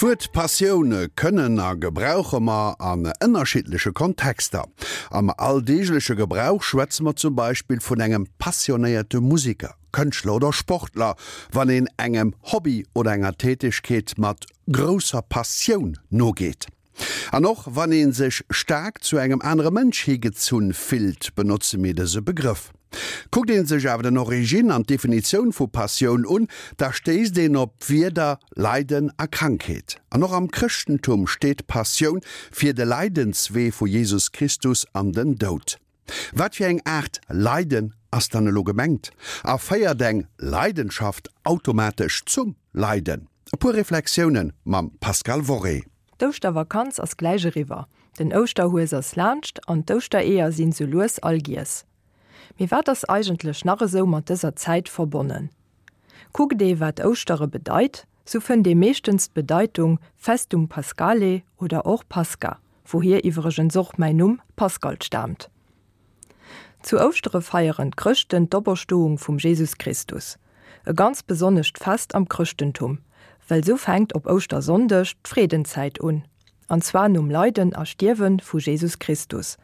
D'Wuert Passioun kënnen a gebrauche mer an ënnerschiddleche Kontexter. Am alldeegleche Gebrauch schwätze mer zum Beispill vun engem passionéierte Museker, Kënschtler oder Sportler, wann een engem Hobby oder enger Tätegkeet mat grousser Passioun nogeet. An och wann ee sech staark zu engem anere Mënsch higezunn fillt, benotze mir dëse Begrëff. Kuckt ee sech awer den Origine an d'Definitioun vu Passioun un, da stéisst een op d'Wierder Leiden a Krankheet. An och am Chrëschtentum steet Passioun fir de Leidenswee vu Jesus Christus an den Doud. Wat fir eng Aart Leiden ass dann elo gemengt? A féiert eng Leidenschaft automatesch zum Leiden? E puer Reflexioune mam Pascale Worré. D'Ouschtervakanz ass gläich eriwwer, den Ouschterhues ass laanscht an d'Ouschtereeër sinn sou lues all giess. Mee wat ass eigentlech nach esou mat dëser Zäit verbonnen? Kuckt ee wat Ouschtere bedeit, sou fënnt ee meeschtens d'Bedeitung Festum Paschale oder och Pascha, wouhier iwwregens och mäin Numm Pascal staamt. Zu Ouschtere feieren d'Chrëschten d'Operstoung vum Jesus Christus. E ganz besonnescht Fest am Chrëschtentum, well sou fänkt op Ouschtersonndeg d'Freedenzäit un, an zwar nom Leiden a Stierwe vu Jesus Christus.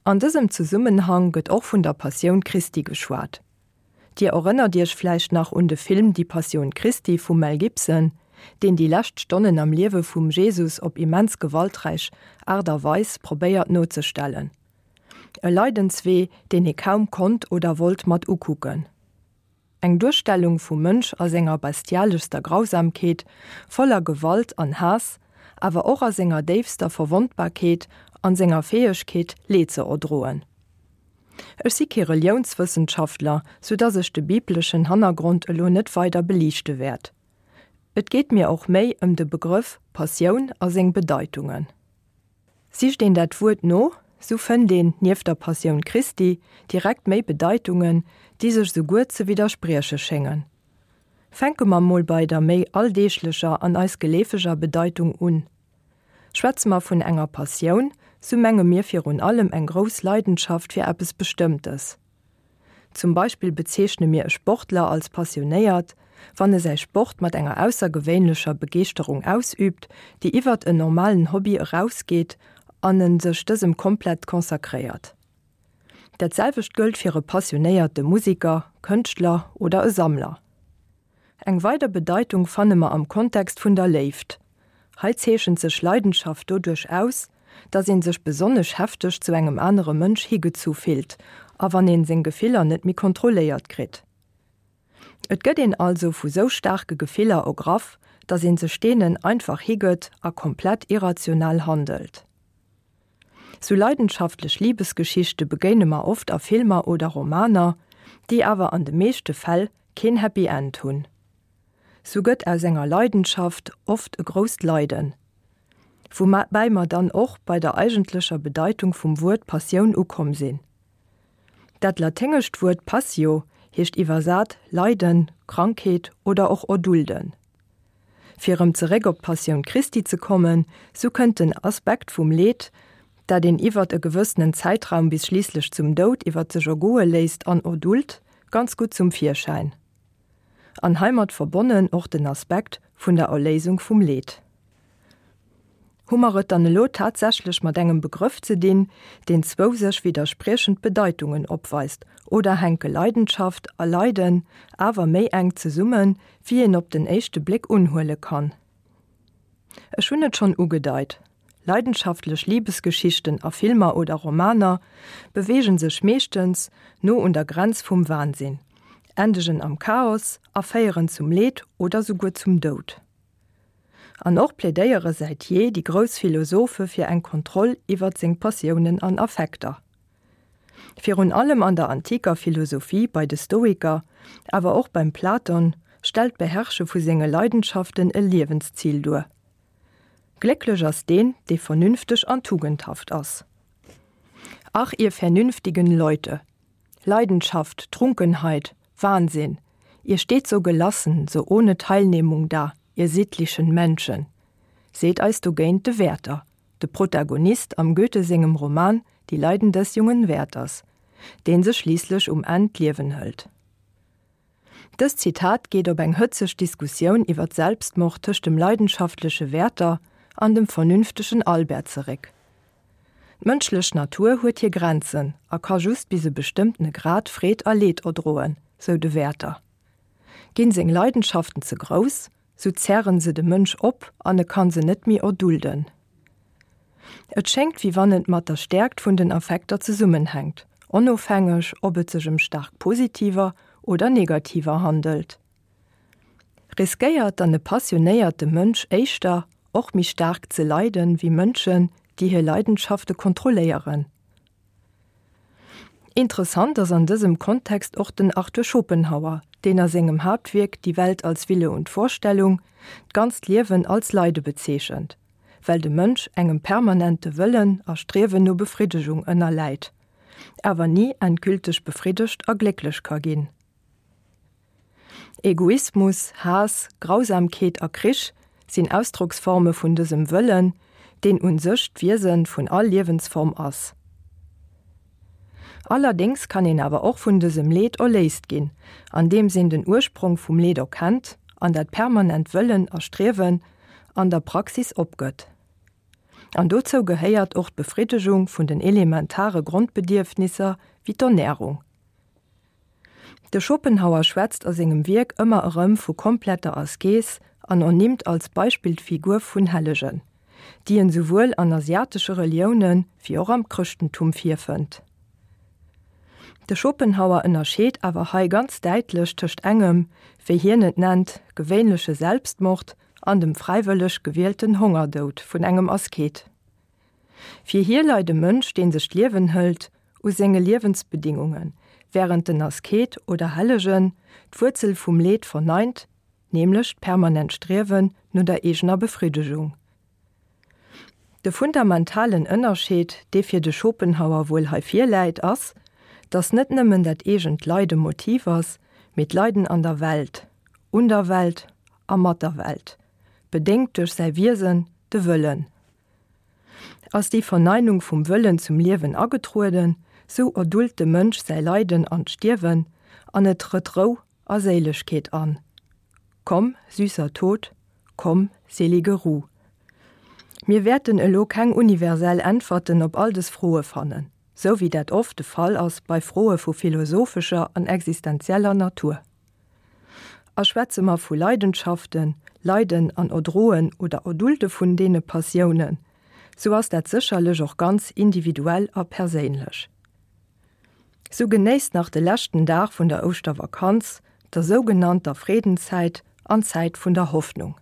An dësem Zesummenhang gëtt och vun der Passioun Christi geschwat. Dir erënnert Iech vläicht nach un de Film Die Passion Christi vum Mel Gibson, deen déi lescht Stonnen am Liewe vum Jesus op immens gewalträich Aart a Weis probéiert nozestellen. E Leidenswee, deen ee kaum konnt oder wollt mat ukucken. Eng Duerstellung vum Mënsch a senger bestialeschster Grausamkeet, voller Gewalt an Haass, awer och a senger déifster Verwondbarkeet an senger Fäegkeet, Leed ze erdroen. Ech si kee Reliounswëssenschaftler, sou dass ech de bibleschen Hannergrond elo net weider beliichte wäert. Et geet mir och méi ëm de Begrëff Passioun a seng Bedeitungen. Sicht een dat Wuert no, sou fënnt een, nieft der Passioun Christi, direkt méi Bedeitungen, déi sech souguer ze widdersprieche schéngen. Fänke mer mol bei der méi alldeeglecher an eis geleefeger Bedeitung un. Schwätze mer vun enger Passioun, sou menge mir virun allem eng grouss Leidenschaft fir eppes Bestëmmtes. Zum Beispill bezeechne mir e Sportler als passionéiert, wann e säi Sport mat enger aussergewéinlecher Begeeschterung ausüübt, déi iwwert en normalen Hobby erausgeet an en sech dësem komplett consacréiert. Dat selwecht gëllt fir e passionéierte Musiker, Kënschtler oder e Sammler. Eng weider Bedeitung fanne mer am Kontext vun der Léift. Hei zeechent sech Leidenschaft doduerch aus, dass een sech besonnesch hefteg zu engem anere Mënsch higezu fillt a wann een seng Gefiller net méi kontrolléiert kritt. Et gëtt een also vu sou staarke Gefiller ergraff, dass een sech deenen einfach higëtt a komplett irrational handelt. Sou leidenschaftlech Libesgeschichte begéine mer oft a Filmer oder Romaner, déi awer an de meeschte Fäll keen Happy End hunn. Sou gëtt aus enger Leidenschaft oft e grousst Leiden. Woubäi mer dann och bei der eigentlecher Bedeitung vum Wuert Passioun ukomm sinn. Dat laténgescht Wuert passio heescht iwwersat Leiden, Krankheet oder och erdulden. Fir erëm zeréck op d'Passioun Christi ze kommen, sou kënnt den Aspekt vum Leed, dat een iwwert e gewëssenen Zäitraum bis schliisslech zum Doud iwwert sech ergoe léisst an erdult, ganz gutt zum Virschäin. An heimat verbonnen och den Aspekt vun der Erléisung vum Leed. Hu mer et dann elo tatsächlech mat engem Begrëff ze dinn, deen zwou sech widderspriechend Bedeitungen opweist, oder hänke Leidenschaft a Leiden awer méi enk zesummen, wéi een op den éischte Bléck unhuele kann? Ech hunn et schonn ugedeit, Leidenschaftlech Libesgeschichten a Filmer oder Romaner beweege sech meeschtens no un der Grenz vum Wahnsinn, endegen am Chaos a féieren zum Leed oder souguer zum Doud. An och plädéiere säit jee déi grouss Philosophe fir eng Kontroll iwwert seng Passiounen an Affekter. Virun allem an der antiker Philosophie bei de Stoiker, awer och beim Platon, stellt d'Beherrsche vu senge Leidenschaften e Liewenszil duer. Glécklech ass deen, dee vernünfteg an tugendhaft ass. Ach, ihr vernünftigen Leute! Leidenschaft, Trunkenheit, Wahnsinn, ihr steht so gelassen, so ohne Teilnehmung da, ihr sittlichen Menschen, seet eis dogéint de Werther, de Protagonist am Goethe sengem Roman Die Leiden des jungen Werthers, dee sech schliisslech um Enn d'Liewen hëlt. Dëst Zitat geet op eng hëtzeg Diskussioun iwwer Selbstmord tëscht dem leidenschaftleche Werther an dem vernünftegen Albert zeréck. D'mënschlech Natur huet hir Grenzen a ka just bis e bestëmmtene Grad Freed a Leed erdroen, sou de Werther. Ginn seng Leidenschaften ze grouss, sou zerren se de Mënsch op an e kann se net méi erdulden. Et schéngt wéi wann et mat der Stäerkt vun den Affekter zesummenhänkt, onofhängeg ob et sech ëm staark positiver oder negativer handelt. Riskéiert dann e passionéierte Mënsch éischter, och méi staark ze leiden, wéi Mënschen, déi hir Leidenschafte kontrolléieren? Interessant ass an dësem Kontext och den Arthur Schopenhauer, deen a sengem Haaptwierk Die Welt als Wille und Vorstellung d'ganzt Liewen als Leide bezeechent, well de Mënsch engem permanente Wëllen a Striewen no Befriddegung ënnerläit, awer ni endgülteg befriddegt a glécklech ka ginn. Egoismus, Haass, Grausamkeet a Krich sinn Ausdrocksforme vun dësem Wëllen, deen un sech d'Wiese vun all Liewensform ass. Allerdéngs kann een awer och vun dësem Leed erléist ginn, andeems een den Ursprong vum Leed erkennt an dat permanent Wëllen a Striewen an der Praxis opgëtt. An dozou gehéiert och d'Befriddegung vun den elementare Grondbedierfnisser wéi d'Ernärung. De Schopenhauer schwätzt a sengem Wierk ëmmer erëm vu kompletter Askees an ernimmt als Beispill d'Figur vun Hellegen, déi en souwuel an asiatesche Relioune wéi och am Chrëschtentum virfënnt. De Schopenhauer ënnerscheet awer hei ganz däitlech tëscht engem, wéi hien et nennt, gewéinleche Selbstmord an dem fräiwëlleg gewielten Hongerdoud vun engem Asket. Fir hie leit e Mënsch, dee sech d'Liewen hëlt, u senge Liewensbedingungen, wärend den Asket oder Hellegen d'Wuerzel vum Leed verneint, nämlech d'permanent Striewen no der eegener Befriddegung. De fundamentalen Ënnerscheed, dee fir de Schopenhauer wuel hei virläit, ass, datt net nëmmen dat eegent Leide Motiv ass, mee d'Leiden an der Welt, un der Welt a mat der Welt, bedéngt duerch säi Wiesen, de Wëllen. Ass déi Verneinung vum Wëllen zum Liewen agetrueden, sou erdult de Mënsch säi Leiden an d'Stierwen, an et trëtt Rou a Séilegkeet an. Komm, süßer Tod, komm, selige Ruh. Mir wäerten elo keng universell Äntwerten op all des Froe fannen, sou wéi dat oft de Fall ass bei Froe vu philosophescher an existenzieller Natur. A schwätze mer vu Leidenschaften, Leiden an Erdroen oder Erdulte vun deene Passiounen, sou ass dat sécherlech och ganz individuell a perséinlech. Sou genéisst nach de leschten Dag vun der Ouschtervakanz, der sougenannter Freedenzäit an Zäit vun der Hoffnung.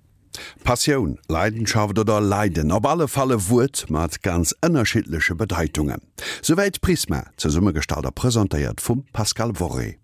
Passioun, Leidenschaft oder Leiden, op alle Fall e Wuert mat ganz ënnerschiddleche Bedeitungen. Souwäit Prisma, zesummegestallt a presentéiert vum Pascal Worré.